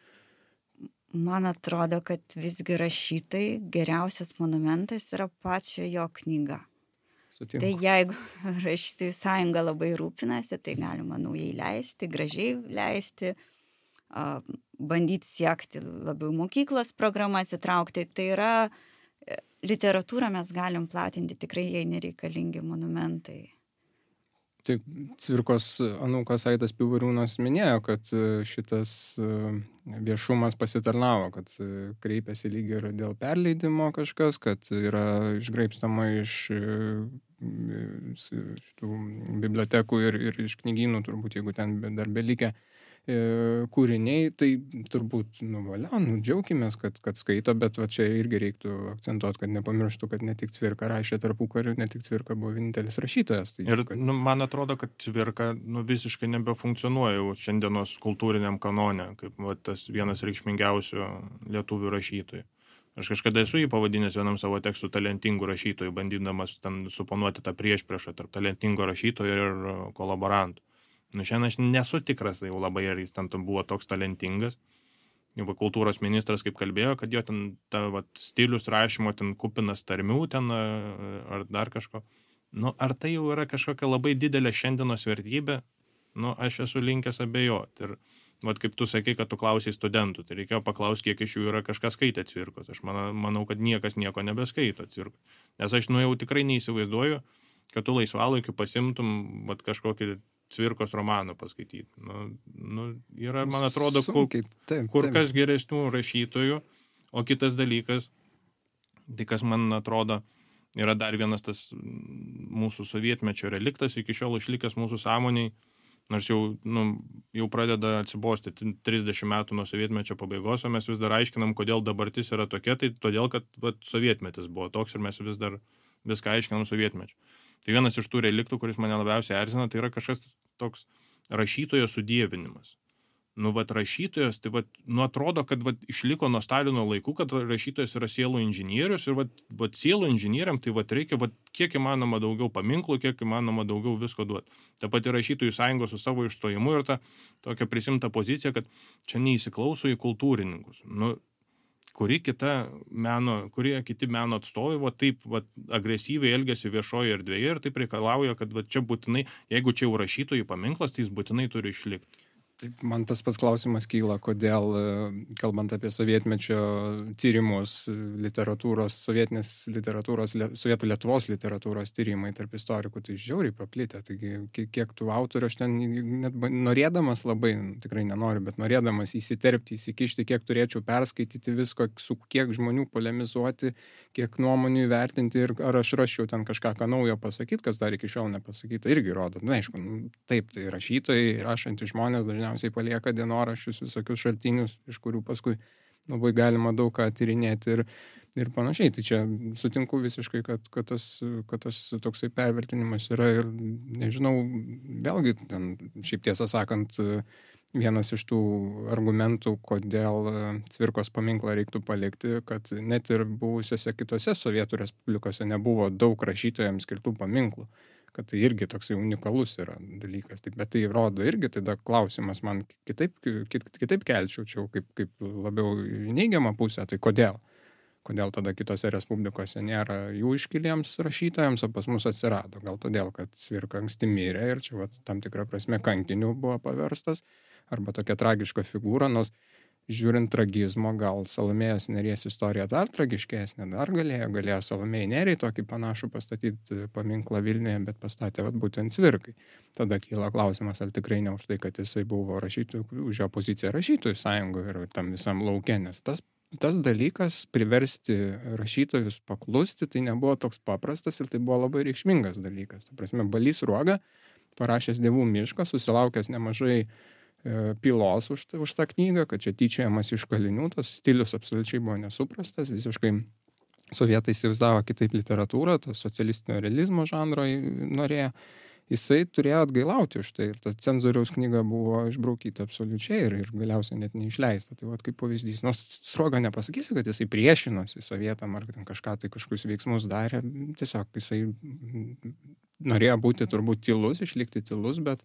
Man atrodo, kad visgi rašytojai geriausias monumentas yra pačio jo knyga. Sutinku. Tai jeigu rašytojų sąjunga labai rūpinasi, tai galima naujai leisti, gražiai leisti, bandyti siekti labiau mokyklos programas įtraukti. Tai yra literatūrą mes galim platinti, tikrai jai nereikalingi monumentai. Tai Cvirkos anūkas Aidas Pivoriūnas minėjo, kad šitas viešumas pasitarnavo, kad kreipėsi lyg ir dėl perleidimo kažkas, kad yra išgraibstama iš šitų bibliotekų ir iš knygynų, turbūt, jeigu ten dar belikę kūriniai, tai turbūt, džiaukimės, kad skaito, bet va čia irgi reiktų akcentuoti, kad nepamirštų, kad ne tik Cvirka rašė tarpukariu, ne tik Cvirka buvo vienintelis rašytojas. Tai, ir man atrodo, kad Cvirka visiškai nebefunkcionuoja jau šiandienos kultūriniam kanone, kaip tas vienas reikšmingiausių lietuvių rašytojų. Aš kažkada esu jį pavadinęs vienam savo tekstų talentingų rašytojų, bandydamas ten suponuoti tą priešpriešą tarp talentingo rašytojo ir kolaborantų. Šiandien aš nesu tikras, jau labai ar jis ten buvo toks talentingas. Jau kultūros ministras kaip kalbėjo, kad jo ten stilius rašymo ten kupinas tarmių ten ar dar kažko. Ar tai jau yra kažkokia labai didelė šiandienos vertybė? Aš esu linkęs abejoti. Ir kaip tu sakai, kad tu klausai studentų, tai reikėjo paklausti, kiek iš jų yra kažkas skaitę Cvirkos. Aš manau, kad niekas nieko nebeskaito Cvirkos. Nes aš jau tikrai neįsivaizduoju, kad tu laisvalaikiu pasimtum kažkokį Cvirkos romaną paskaityti. Yra, man atrodo, kur kas geresnių rašytojų, o kitas dalykas, tai kas man atrodo, yra dar vienas tas mūsų sovietmečio reliktas, iki šiol išlikęs mūsų sąmoniai, nors jau pradeda atsibosti 30 metų nuo sovietmečio pabaigos, o mes vis dar aiškinam, kodėl dabartis yra tokia, tai todėl, kad sovietmetis buvo toks ir mes vis dar viską aiškinam sovietmečiu. Tai vienas iš tų reliktų, kuris mane labiausiai erzina, tai yra kažkas toks rašytojo sudievinimas. Rašytojas, tai atrodo, kad išliko nuo Stalino laikų, kad rašytojas yra sielų inžinierius ir sielų inžinieriam tai reikia kiek įmanoma daugiau paminklų, kiek įmanoma daugiau visko duoti. Ta pati rašytojų sąjunga su savo išstojimu ir ta tokia prisimta pozicija, kad čia neįsiklauso į kultūrininkus. Kurie kiti meno atstovai taip agresyviai elgiasi viešoje erdvėje ir taip reikalauja, kad čia būtinai, jeigu čia jau rašytojų paminklas, tai jis būtinai turi išlikti. Taip, man tas pats klausimas kyla, kodėl, kalbant apie sovietmečio tyrimus, sovietų Lietuvos literatūros tyrimai tarp istorikų, tai žiauriai paplitę. Taigi, kiek tų autorių aš ten net norėdamas labai, tikrai nenoriu, bet norėdamas įsiterpti, įsikišti, kiek turėčiau perskaityti visko, su kiek žmonių polemizuoti, kiek nuomonių įvertinti ir ar aš raščiau ten kažką naujo pasakyti, kas dar iki šiol nepasakyta, irgi rodo. Aišku, taip, tai rašytojai, rašantys žmonės dažniausiai palieka dienoraščius, visokius šaltinius, iš kurių paskui labai galima daug ką tyrinėti ir panašiai. Tai čia sutinku visiškai, kad tas toksai pervertinimas yra ir nežinau, vėlgi, šiaip tiesą sakant, vienas iš tų argumentų, kodėl Cvirkos paminklą reiktų palikti, kad net ir buvusiose kitose Sovietų respublikose nebuvo daug rašytojams skirtų paminklų. Kad tai irgi toksai unikalus yra dalykas. Bet tai rodo irgi, tada klausimas man kitaip kelčiau, čia kaip labiau neigiamą pusę, tai kodėl? Kodėl tada kitose respublikose nėra jų iškiliems rašytojams, o pas mus atsirado. Gal todėl, kad Cvirka anksti mirė ir čia tam tikrą prasme kankiniu buvo paverstas, arba tokia tragiška figūra, nors žiūrint tragizmo, gal Salomėjos Nėries istorija dar tragiškesnė, dar galėjo Salomėjai Nėriai tokį panašų pastatyti paminklą Vilniuje, bet pastatė būtent Cvirkai. Tada kyla klausimas, ar tikrai ne už tai, kad jisai buvo rašytojų, už jo poziciją rašytojų sąjungoje ir tam visam lauke, nes tas dalykas priversti rašytojus paklusti, tai nebuvo toks paprastas ir tai buvo labai reikšmingas dalykas. Ta prasme, Balys Sruoga, parašęs Dievų mišką, susilaukęs nemažai pylos už tą knygą, kad čia tyčiojamas iš kalinių, tas stilius absoliučiai buvo nesuprastas, visiškai sovietai įsivaizdavo kitaip literatūrą, tas socialistinio realizmo žanro norėjo. Jisai turėjo atgailauti už tai ir ta cenzoriaus knyga buvo išbraukyta absoliučiai ir galiausiai net neišleista. Tai kaip pavyzdys, nors Sruoga nepasakysiu, kad jisai priešinosi sovietam ar kažkokius veiksmus darė, tiesiog jisai norėjo būti turbūt tylus, išlikti tylus, bet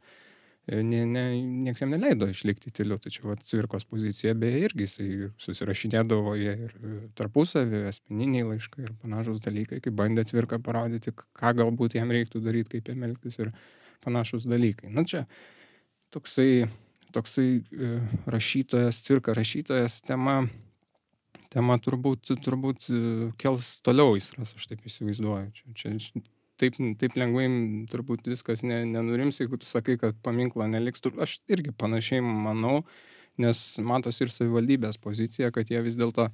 nieks jam neleido išlikti tyliu. Tačiau Cvirkos pozicija beje irgi jisai susirašinėdavo jie ir tarpusavį, asmeniniai laiškai ir panašus dalykai, kaip bandė Cvirka parodyti, ką galbūt jam reiktų daryti, kaip jam elgtis ir panašus dalykai. Na čia toksai rašytojas, Cvirka rašytojas tema turbūt kels toliau aistras, aš taip įsivaizduoju. Čia taip lengvai turbūt viskas nenurims, jeigu tu sakai, kad paminklo neliks. Aš irgi panašiai manau, nes matosi ir savivaldybės pozicija, kad jie vis dėlto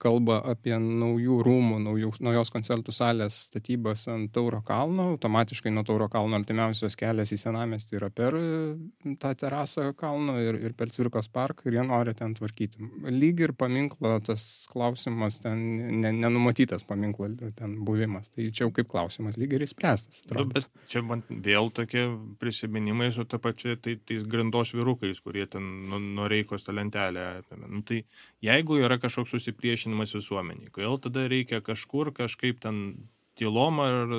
kalba apie naujų rūmų, naujos koncertų salės statybas ant Tauro kalno. Automatiškai nuo Tauro kalno artimiausias kelias į senamiestį yra per tą terasą kalno ir per Cvirkos parką ir jie nori ten tvarkyti. Lyg ir paminklo tas klausimas, ten nenumatytas paminklo ten buvimas. Tai čia jau kaip klausimas, lyg ir įspręstas. Bet čia man vėl tokie prisiminimai su ta pačia tais grindos vyrukais, kurie ten Noreikos tą lentelę apėmė. Tai jeigu yra kažkoks susipriešinimas visuomeniai, kodėl tada reikia kažkaip ten tylom ar,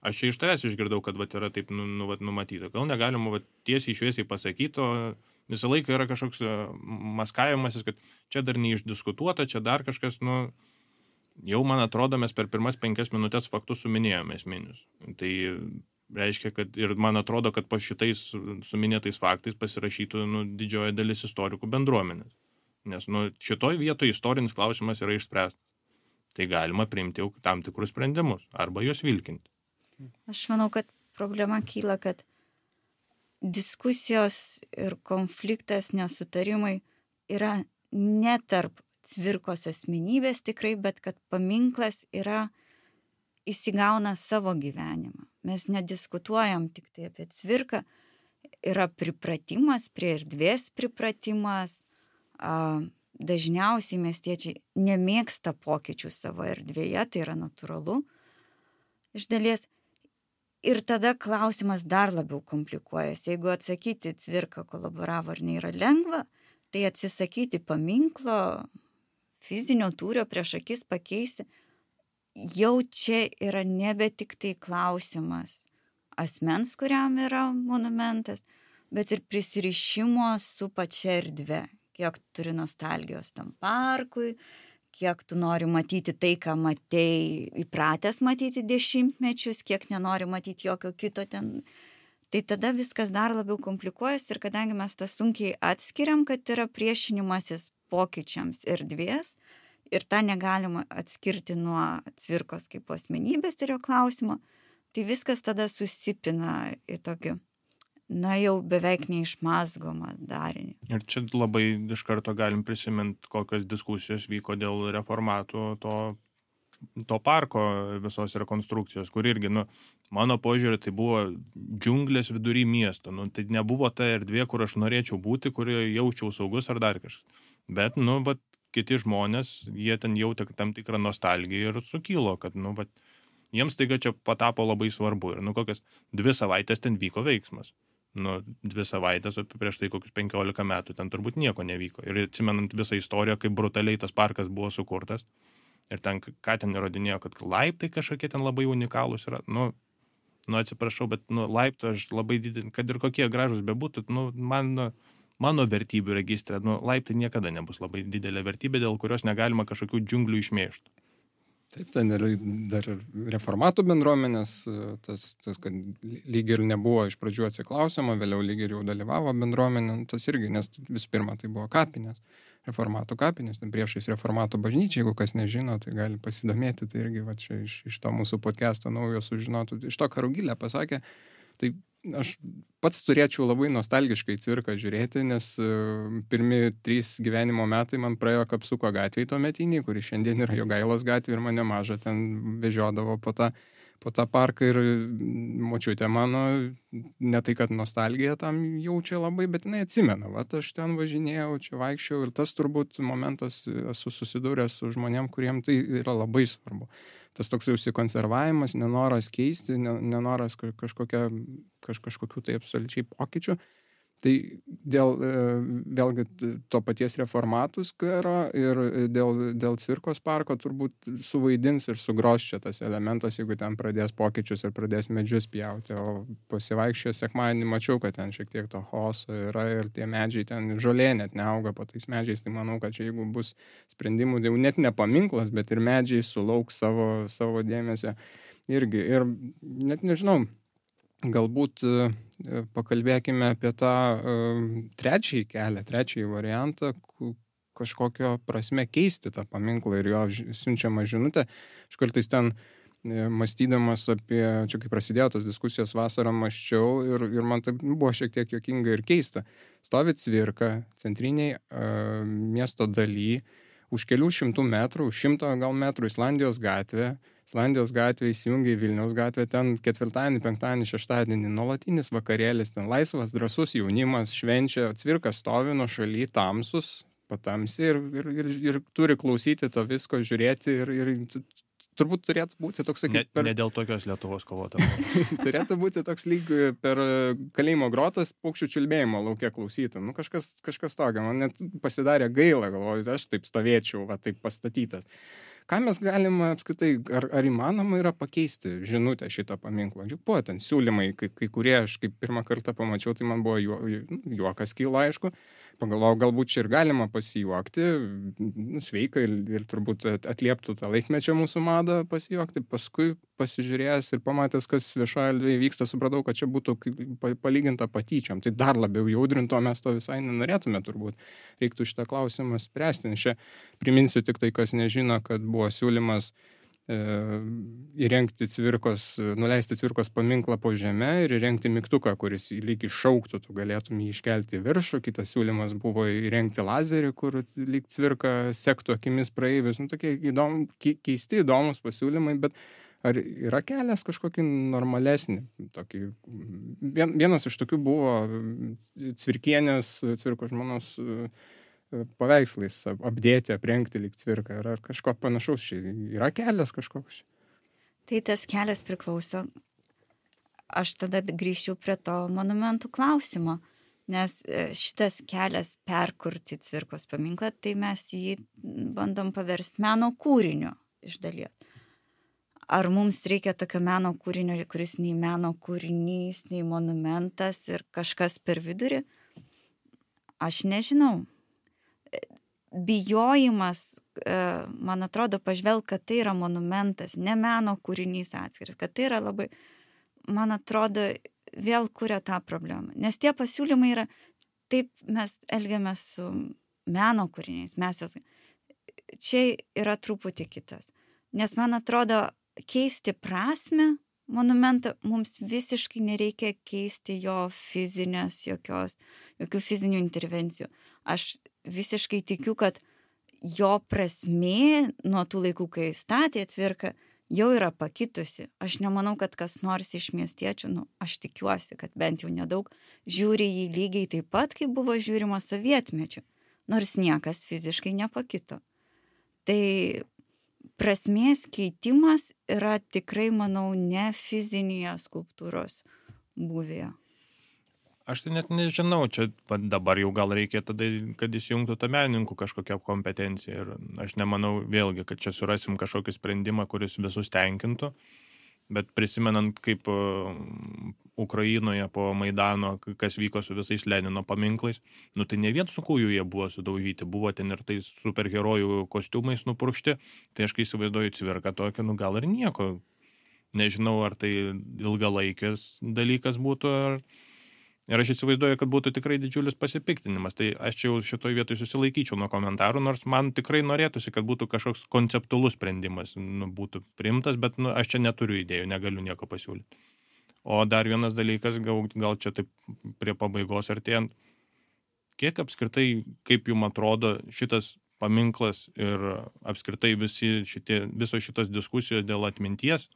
aš čia iš tavęs išgirdau, kad yra taip numatyta. Gal negalima tiesiai šviesiai pasakyti, o visą laiką yra kažkoks maskavimasis, kad čia dar neišdiskutuota, čia dar kažkas, jau man atrodo, mes per pirmas 5 minutės faktus suminėjome esminius. Tai reiškia, kad ir man atrodo, kad po šitais suminėtais faktais pasirašytų didžioji dalis istorikų bendruomenės. Nes šitoj vietoje istorinis klausimas yra išspręstas. Tai galima priimti jau tam tikrus sprendimus arba juos vilkinti. Aš manau, kad problema kyla, kad diskusijos ir konfliktas, nesutarimai yra ne tarp Cvirkos asmenybės tikrai, bet kad paminklas įsigauna savo gyvenimą. Mes nediskutuojam tik tai apie Cvirką, yra pripratimas, prie erdvės pripratimas. Dažniausiai miestiečiai nemėgsta pokyčių savo erdvėje, tai yra natūralu iš dalies. Ir tada klausimas dar labiau komplikuojasi. Jeigu atsakyti Cvirka kolaboravo ar ne yra lengva, tai atsisakyti paminklo, fizinio tūrio prieš akis pakeisti, jau čia yra nebe tik tai klausimas asmens, kuriam yra monumentas, bet ir prisirišimo su pačia erdve. Kiek turi nostalgijos tam parkui, kiek tu nori matyti tai, ką matei įpratęs matyti dešimtmečius, kiek nenori matyti jokio kito ten. Tai tada viskas dar labiau komplikuojasi ir kadangi mes tą sunkiai atskiriam, kad yra priešinimasis pokyčiams erdvės ir tą negalima atskirti nuo Cvirkos kaip asmenybės ir jo klausimo, tai viskas tada susipina į tokį jau beveik neišmazgomą darinį. Ir čia labai iš karto galim prisiminti, kokios diskusijos vyko dėl reformatų to parko visos rekonstrukcijos, kur irgi, mano požiūrė, tai buvo džiunglės vidury miesto. Tai nebuvo ta erdvė, kur aš norėčiau būti, kurioje jaučiau saugus ar dar kažkas. Bet, kiti žmonės, jie ten jautė tam tikrą nostalgiją ir sukilo, kad, jiems taiga čia patapo labai svarbu. Ir, kokias 2 savaitės ten vyko veiksmas. 2 savaitės, o prieš tai kokius 15 metų ten turbūt nieko nevyko. Ir atsimenant visą istoriją, kaip brutaliai tas parkas buvo sukurtas, ir ten, ką ten įrodinėjo, kad laiptai kažkokie ten labai unikalūs yra. Atsiprašau, bet laiptų aš labai didelį, kad ir kokie gražus bebūtų, man mano vertybių registre, laiptai niekada nebus labai didelė vertybė, dėl kurios negalima kažkokių džiunglių išmėžti. Taip, ten ir dar reformatų bendruomenės, kad lyg ir nebuvo iš pradžių atsiklausimo, vėliau lyg ir jau dalyvavo bendruomenė, tas irgi, nes visų pirma tai buvo kapinės, reformatų kapinės, priešais reformatų bažnyčiai, jeigu kas nežino, tai gali pasidomėti, tai irgi va čia iš to mūsų podcast'o naujo sužinotų, iš to, ką Rugilė pasakė, tai aš pats turėčiau labai nostalgiškai Cvirką žiūrėti, nes pirmi 3 gyvenimo metai man praėjo Kapsuko gatvėje tuometinį, kuri šiandien yra Jogailos gatvė ir mane mažą ten vežiodavo po tą parką ir močiutė mano, ne tai, kad nostalgija tam jaučia labai, bet jinai atsimena, va, aš ten važinėjau, čia vaikščiau ir tas turbūt momentas esu susidūręs su žmonėm, kuriem tai yra labai svarbu. Tas toks užsikonservavimas, nenoras keisti, nenoras kažkokių tai absoliučiai pokyčių. Tai dėl vėlgi to paties reformatų skvero ir dėl Cvirkos parko turbūt suvaidins ir sugros čia tas elementas, jeigu ten pradės pokyčius ir pradės medžius pjauti. O pasivaikščiojęs sekmadienį mačiau, kad ten šiek tiek to chaoso yra ir tie medžiai ten žolė net neauga po tais medžiais. Tai manau, kad čia jeigu bus sprendimų, jau net ne paminklas, bet ir medžiai sulauks savo dėmesio irgi. Ir net nežinau, galbūt pakalbėkime apie tą trečiąjį kelią, trečiąjį variantą, kažkokio prasme keisti tą paminklą ir jo siunčiamą žinutę. Aš kartais ten mąstydamas apie, čia kai prasidėjo tos diskusijos vasarą, mąsčiau ir man tai buvo šiek tiek juokinga ir keista. Stovi Cvirka centriniai miesto daly, už kelių šimtų metrų, už 100 gal metrų Islandijos gatvė įsijungia į Vilniaus gatvę, ten ketvirtadienį, penktadienį, šeštadienį nuolatinis vakarėlis, ten laisvas, drąsus jaunimas švenčia, Cvirka stovi nuo šaly, tamsus, patamsi ir turi klausyti to visko, žiūrėti ir turbūt turėtų būti toks, kaip ne dėl tokios Lietuvos kovotojų. Turėtų būti toks lyg per kalėjimo grotas paukščių čiulbėjimo lauke klausytų. Kažkas tokio, man net pasidarė gaila, galvoju, aš taip stovėčiau, va taip pastatytas. Ką mes galime apskritai, ar įmanoma yra pakeisti žinutę šitą paminklą? Juk buvo ten siūlymai, kai kurie aš kaip pirmą kartą pamačiau, tai man buvo juokas kyla, aišku. Pagalvojau, galbūt čia ir galima pasijuokti, sveika ir turbūt atlieptų tą laikmečio mūsų madą pasijuokti. Paskui pasižiūrėjęs ir pamatęs, kas viešoje erdvėje vyksta, supratau, kad čia būtų palyginta patyčiom. Tai dar labiau jaudrinto, mes to visai nenorėtume turbūt. Reiktų šitą klausimą spręsti. Čia priminsiu tik tai, kas nežino, kad buvo siūlymas įrengti nuleisti Cvirkos paminklą po žeme ir įrengti mygtuką, kuris lyg iššauktų, tu galėtum jį iškelti į viršų. Kitas siūlymas buvo įrengti lazerį, kur lyg Cvirka sektų akimis praeivius. Tokie keisti, įdomus pasiūlymai, bet ar yra kelias kažkokį normalesnį? Vienas iš tokių buvo Cvirkienės, Cvirkos žmonos paveikslais apdėti, aprengti lyg Cvirką. Ar kažko panašaus čia? Yra kelias kažkoks? Tai tas kelias priklauso. Aš tada grįžčiau prie to monumentų klausimo, nes šitas kelias perkurti Cvirkos paminklą, tai mes jį bandom paversti meno kūriniu iš dalies. Ar mums reikia tokio meno kūrinio, kuris nei meno kūrinys, nei monumentas ir kažkas per vidurį? Aš nežinau. Bijojimas, man atrodo, pažvelg, kad tai yra monumentas, ne meno kūrinys atskiras, kad tai yra labai, man atrodo, vėl kuria tą problemą. Nes tie pasiūlymai yra, taip mes elgiamės su meno kūriniais, čia yra truputį kitas. Nes man atrodo, keisti prasmę monumentą mums visiškai nereikia keisti jo jokių fizinių intervencijų. Aš visiškai tikiu, kad jo prasmė nuo tų laikų, kai statė Cvirka, jau yra pakitusi. Aš nemanau, kad kas nors iš miestiečių, aš tikiuosi, kad bent jau nedaug, žiūri jį lygiai taip pat, kaip buvo žiūrima sovietmečiu, nors niekas fiziškai nepakito. Tai prasmės keitimas yra tikrai, manau, ne fizinėje skulptūros būvėje. Aš tai net nežinau, čia dabar jau gal reikia tada, kad įsijungtų tą menininkų kažkokią kompetenciją. Ir aš nemanau vėlgi, kad čia surasim kažkokį sprendimą, kuris visus tenkintų. Bet prisimenant, kaip Ukrainoje po Maidano, kas vyko su visais Lenino paminklais, nu tai ne vien su kūjų jie buvo sudaužyti, buvo ten ir tais superherojų kostiumais nupurkšti, tai aš kai įsivaizduoju Cvirką tokį, nu gal ir nieko. Nežinau, ar tai ilgalaikis dalykas būtų, ir aš įsivaizduoju, kad būtų tikrai didžiulis pasipiktinimas. Tai aš čia jau šitoj vietoj susilaikyčiau nuo komentarų, nors man tikrai norėtųsi, kad būtų kažkoks konceptualus sprendimas, būtų priimtas, bet aš čia neturiu idėjų, negaliu nieko pasiūlyti. O dar vienas dalykas, gal čia taip prie pabaigos artėjant, kiek apskritai, kaip jums atrodo šitas paminklas ir apskritai visos šitos diskusijos dėl atminties,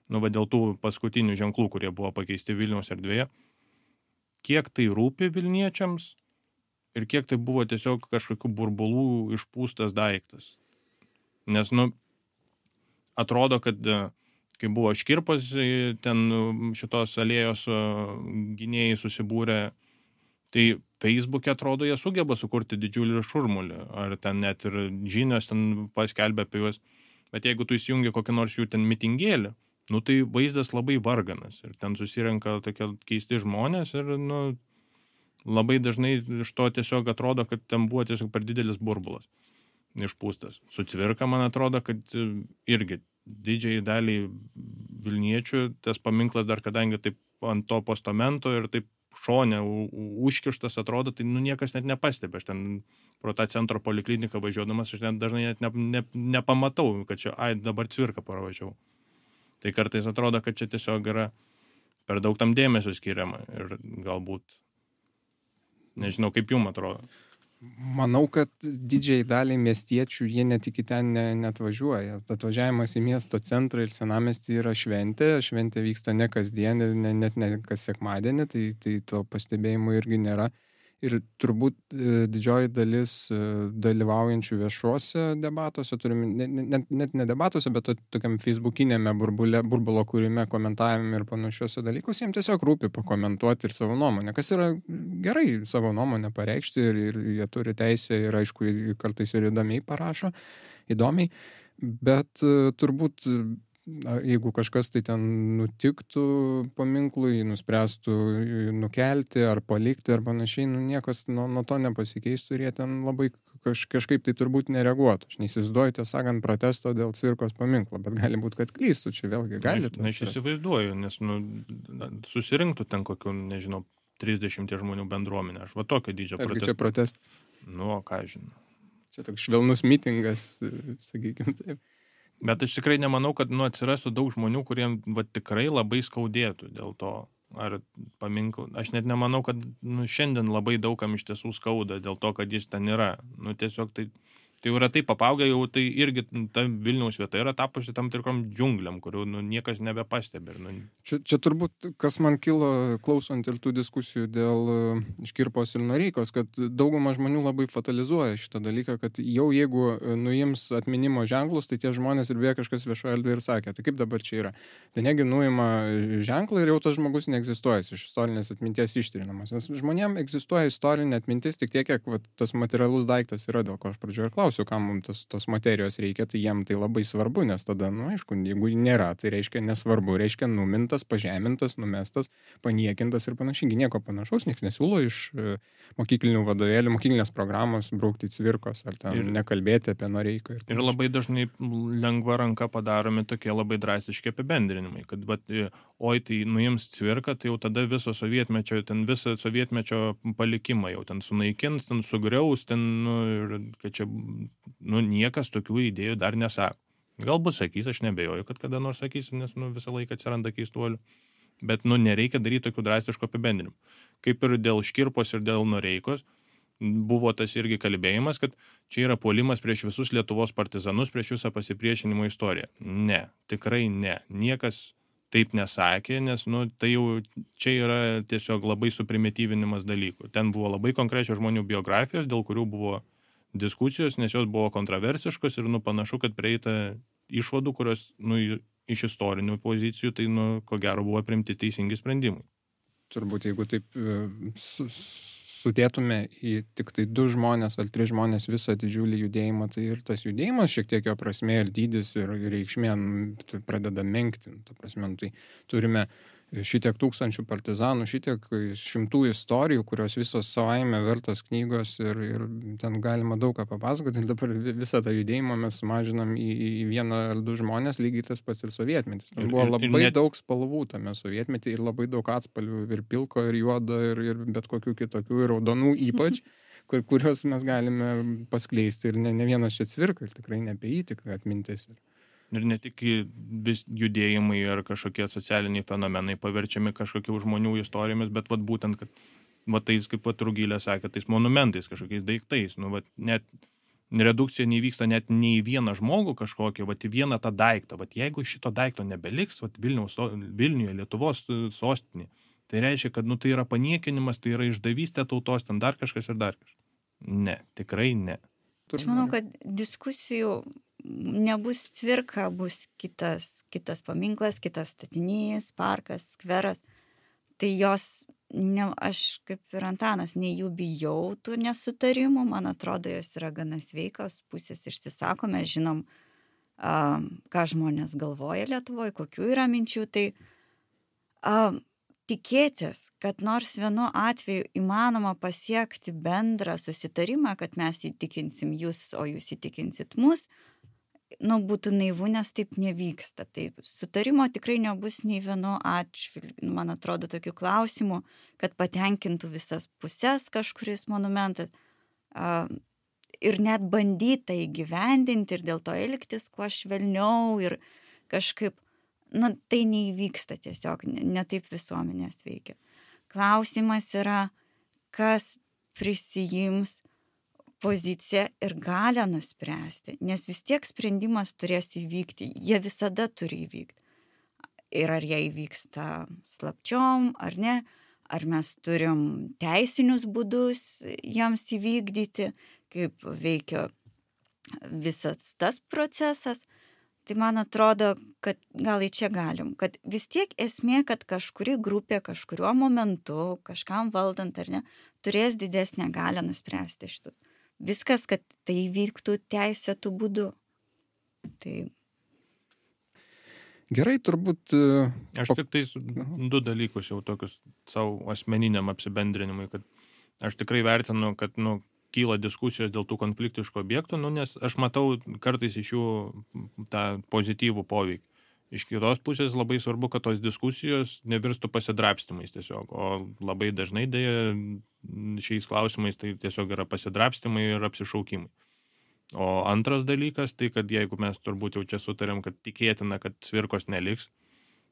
dėl tų paskutinių ženklų, kurie buvo pakeisti Vilniaus erdvėje, kiek tai rūpi Vilniečiams ir kiek tai buvo tiesiog kažkokių burbulų išpūstas daiktas. Nes, atrodo, kad kai buvo Škirpos, ten šitos alėjos gynėjai susibūrė, tai Facebook'e atrodo, jie sugeba sukurti didžiulį šurmulį, ar ten net ir žinios ten paskelbė apie juos. Bet jeigu tu įsijungi kokį nors jų ten mitingėlį, tai vaizdas labai varganas ir ten susirenka tokie keisti žmonės ir, labai dažnai iš to tiesiog atrodo, kad ten buvo tiesiog per didelis burbulas išpūstas. Su Cvirka, man atrodo, kad irgi didžiai daliai Vilniečių tas paminklas dar kadangi taip ant to postamento ir taip šone užkištas atrodo, tai niekas net nepastebi. Aš ten pro tą centro polikliniką važiuodamas, aš dažnai net nepamatau, kad čia, dabar Cvirka paravažiavau. Tai kartais atrodo, kad čia tiesiog yra per daug tam dėmesio skiriama ir galbūt, nežinau, kaip jums atrodo. Manau, kad didžiai daliai miestiečių jie net iki ten net važiuoja. Atvažiavimas į miesto centrą ir senamiestį yra šventė. Šventė vyksta ne kasdien ir net ne kas sekmadienį, tai to pastebėjimo irgi nėra. Ir turbūt didžioji dalis dalyvaujančių viešuose debatuose, net ne debatuose, bet tokiam facebookinėme burbulo kūrime, komentavime ir panašiuose dalykus, jiems tiesiog rūpi pakomentuoti ir savo nuomonę, kas yra gerai savo nuomonę pareikšti ir jie turi teisę ir aišku, kartais ir įdomiai parašo, bet turbūt jeigu kažkas tai ten nutiktų paminklui, nuspręstų nukelti ar palikti ar panašiai, niekas nuo to nepasikeistų ir jie ten labai kažkaip tai turbūt nereaguotų. Aš neįsivaizduoju, tiesą sakant, protesto dėl Cvirkos paminklo, bet gali būti, kad klystų, čia vėlgi gali. Aš įsivaizduoju, nes susirinktų ten kokių, nežinau, 30 žmonių bendruomenę. Aš va tokio dydžio protestą. Argi čia protestas? Ką žinau. Čia toks švelnus mitingas, sakykime taip. Bet aš tikrai nemanau, kad atsirastų daug žmonių, kuriems tikrai labai skaudėtų dėl to, ar paminklų. Aš net nemanau, kad šiandien labai daugam iš tiesų skauda dėl to, kad jis ten yra. Tiesiog tai yra taip apaugę, jau tai irgi ta Vilniaus vieta yra tapusi tam tikrom džiungliam, kurių niekas nebepastebi. Čia turbūt, kas man kilo klausant ir tų diskusijų dėl Škirpos ir Noreikos, kad dauguma žmonių labai fatalizuoja šitą dalyką, kad jau jeigu nuims atminimo ženklus, tai tie žmonės ir beje kažkas viešoje erdvėje ir sakė, tai kaip dabar čia yra. Tai negi nuima ženklą ir jau tas žmogus neegzistuoja, iš istorinės atminties ištrinamas. Nes žmonėms egzistuoja istorinė atmintis tik tiek, kiek tas materialus daiktas yra, dėl ko aš pradžioje ir klausiu, kam mums tos materijos reikia, tai jiem tai labai svarbu, nes tada, aišku, jeigu nėra, tai reiškia nesvarbu, reiškia numintas, pažemintas, numestas, paniekintas ir panašiai. Nieko panašaus, nieks nesiūlo iš mokyklinių vadovėlių, mokyklinės programos braukti Cvirkos ar ten nekalbėti apie Noreiką. Ir labai dažnai lengva ranka padaromi tokie labai drastiški apibendrinimai, kad tai nuims Cvirką, tai jau tada visą sovietmečio palikimą jau ten sunaikins, ten sugriaus, ten, kad čia niekas tokių idėjų dar nesako. Galbūt sakys, aš nebejoju, kad kada nors sakys, nes visą laiką atsiranda keistuolių. Bet nereikia daryti tokių drastiškų apibendrinimų. Kaip ir dėl Škirpos ir dėl Noreikos buvo tas irgi kalbėjimas, kad čia yra puolimas prieš visus Lietuvos partizanus, prieš visą pasipriešinimo istoriją. Ne, tikrai ne. Niekas taip nesakė, nes tai jau čia yra tiesiog labai suprimityvinimas dalykų. Ten buvo labai konkrečios žmonių biografijos, dėl kurių buvo diskusijos, nes jos buvo kontroversiškos ir panašu, kad prieita išvadų, kurios iš istorinių pozicijų, tai ko gero buvo priimti teisingi sprendimai. Turbūt, jeigu taip sudėtume į tik tai 2 žmonės ar 3 žmonės visą didžiulį judėjimą, tai ir tas judėjimas šiek tiek jo prasmė ir dydis ir reikšmė pradeda menkti. Ta prasme, tai turime šitiek tūkstančių partizanų, šitiek šimtų istorijų, kurios visos savaime vertos knygos ir ten galima daug ką papasakoti. Dabar visą tą judėjimą mes sumažinam į 1 ar 2 žmonės, lygiai tas pats ir sovietmetis. Ten buvo labai daug spalvų tame sovietmetį ir labai daug atspalvių ir pilko, ir juodo, ir bet kokių kitokių, ir raudonų ypač, kuriuos mes galime paskleisti. Ir ne vienas čia Cvirka, ir tikrai ne apie jį tik atmintis. Ir ne tik vis judėjimai ar kažkokie socialiniai fenomenai paverčiami kažkokių žmonių istorijomis, bet vat būtent, kad vat tais, kaip vat Rugilė sakė, tais monumentais, kažkokiais daiktais. Nu, vat net redukcija nevyksta net nei vieną žmogų kažkokį, vat į vieną tą daiktą. Vat jeigu šito daikto nebeliks, vat Vilniuje, Lietuvos sostinė, tai reiškia, kad nu, tai yra paniekinimas, tai yra išdavystė tautos, ten dar kažkas ir dar kažkas. Ne, tikrai ne. Aš manau, kad diskusijų nebus Cvirka, bus kitas paminklas, kitas statinys, parkas, skveras. Tai jos, aš kaip ir Antanas, nei jų bijau tų nesutarimų, man atrodo, jos yra gana sveikos, pusės išsisako, mes žinom, ką žmonės galvoja Lietuvoje, kokių yra minčių, tai tikėtis, kad nors vienu atveju įmanoma pasiekti bendrą susitarimą, kad mes įtikinsim jūs, o jūs įtikinsit mus, būtų naivu, nes taip nevyksta. Tai sutarimo tikrai nebus nei vienu atžvilgiu, man atrodo, tokių klausimų, kad patenkintų visas pusės kažkuris monumentas. Ir net bandyta įgyvendinti ir dėl to elgtis kuo švelniau ir kažkaip, tai neįvyksta tiesiog, ne taip visuomenės veikia. Klausimas yra, kas prisijims poziciją ir galę nuspręsti, nes vis tiek sprendimas turės įvykti, jie visada turi įvykti. Ir ar jie įvyksta slapčiom, ar ne, ar mes turim teisinius būdus jiems įvykdyti, kaip veikia visas tas procesas, tai man atrodo, kad gal į čia galim, kad vis tiek esmė, kad kažkuri grupė kažkuriuo momentu, kažkam valdant ar ne, turės didesnę galę nuspręsti šitų. Viskas, kad tai vyktų teisėtų būdu. Tai... Gerai, turbūt... Aš tik tais 2 dalykus jau tokius savo asmeniniam apsibendrinimui, kad aš tikrai vertinu, kad kyla diskusijos dėl tų konfliktiškų objektų, nes aš matau kartais iš jų tą pozityvų poveikį. Iš kitos pusės labai svarbu, kad tos diskusijos nevirstų pasidrabstymais tiesiog, o labai dažnai dėja šiais klausimais tai tiesiog yra pasidrabstymai ir apsišaukimai. O antras dalykas, tai kad jeigu mes turbūt jau čia sutarėm, kad tikėtina, kad Cvirkos neliks,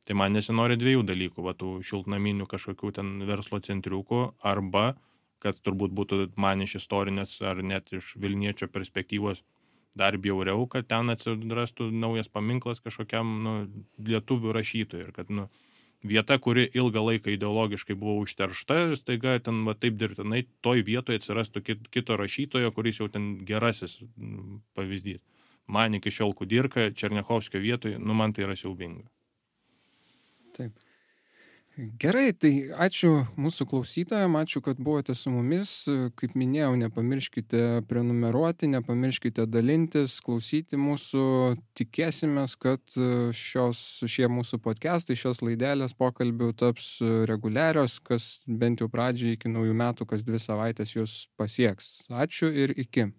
tai man nesinori 2 dalykų, tų šiltnaminių kažkokių ten verslo centriukų, arba, kad turbūt būtų man iš istorinės ar net iš Vilniečio perspektyvos dar bjauriau, kad ten atsirastų naujas paminklas kažkokiam lietuvių rašytojui ir kad vieta, kuri ilgą laiką ideologiškai buvo užteršta, staiga ten taip dirbtinai toj vietoje atsirastų kito rašytojo, kuris jau ten gerasis pavyzdys. Man iki šiol Kudirka, Černiachovskio vietoje, man tai yra siaubinga. Taip. Gerai, tai ačiū mūsų klausytojams, ačiū, kad buvote su mumis. Kaip minėjau, nepamirškite prenumeruoti, nepamirškite dalintis, klausyti mūsų. Tikėsimės, kad šie mūsų podcastai, šios laidelės pokalbių taps reguliarios, kas bent jau pradžiai iki naujų metų, kas 2 savaitės jūs pasieks. Ačiū ir iki.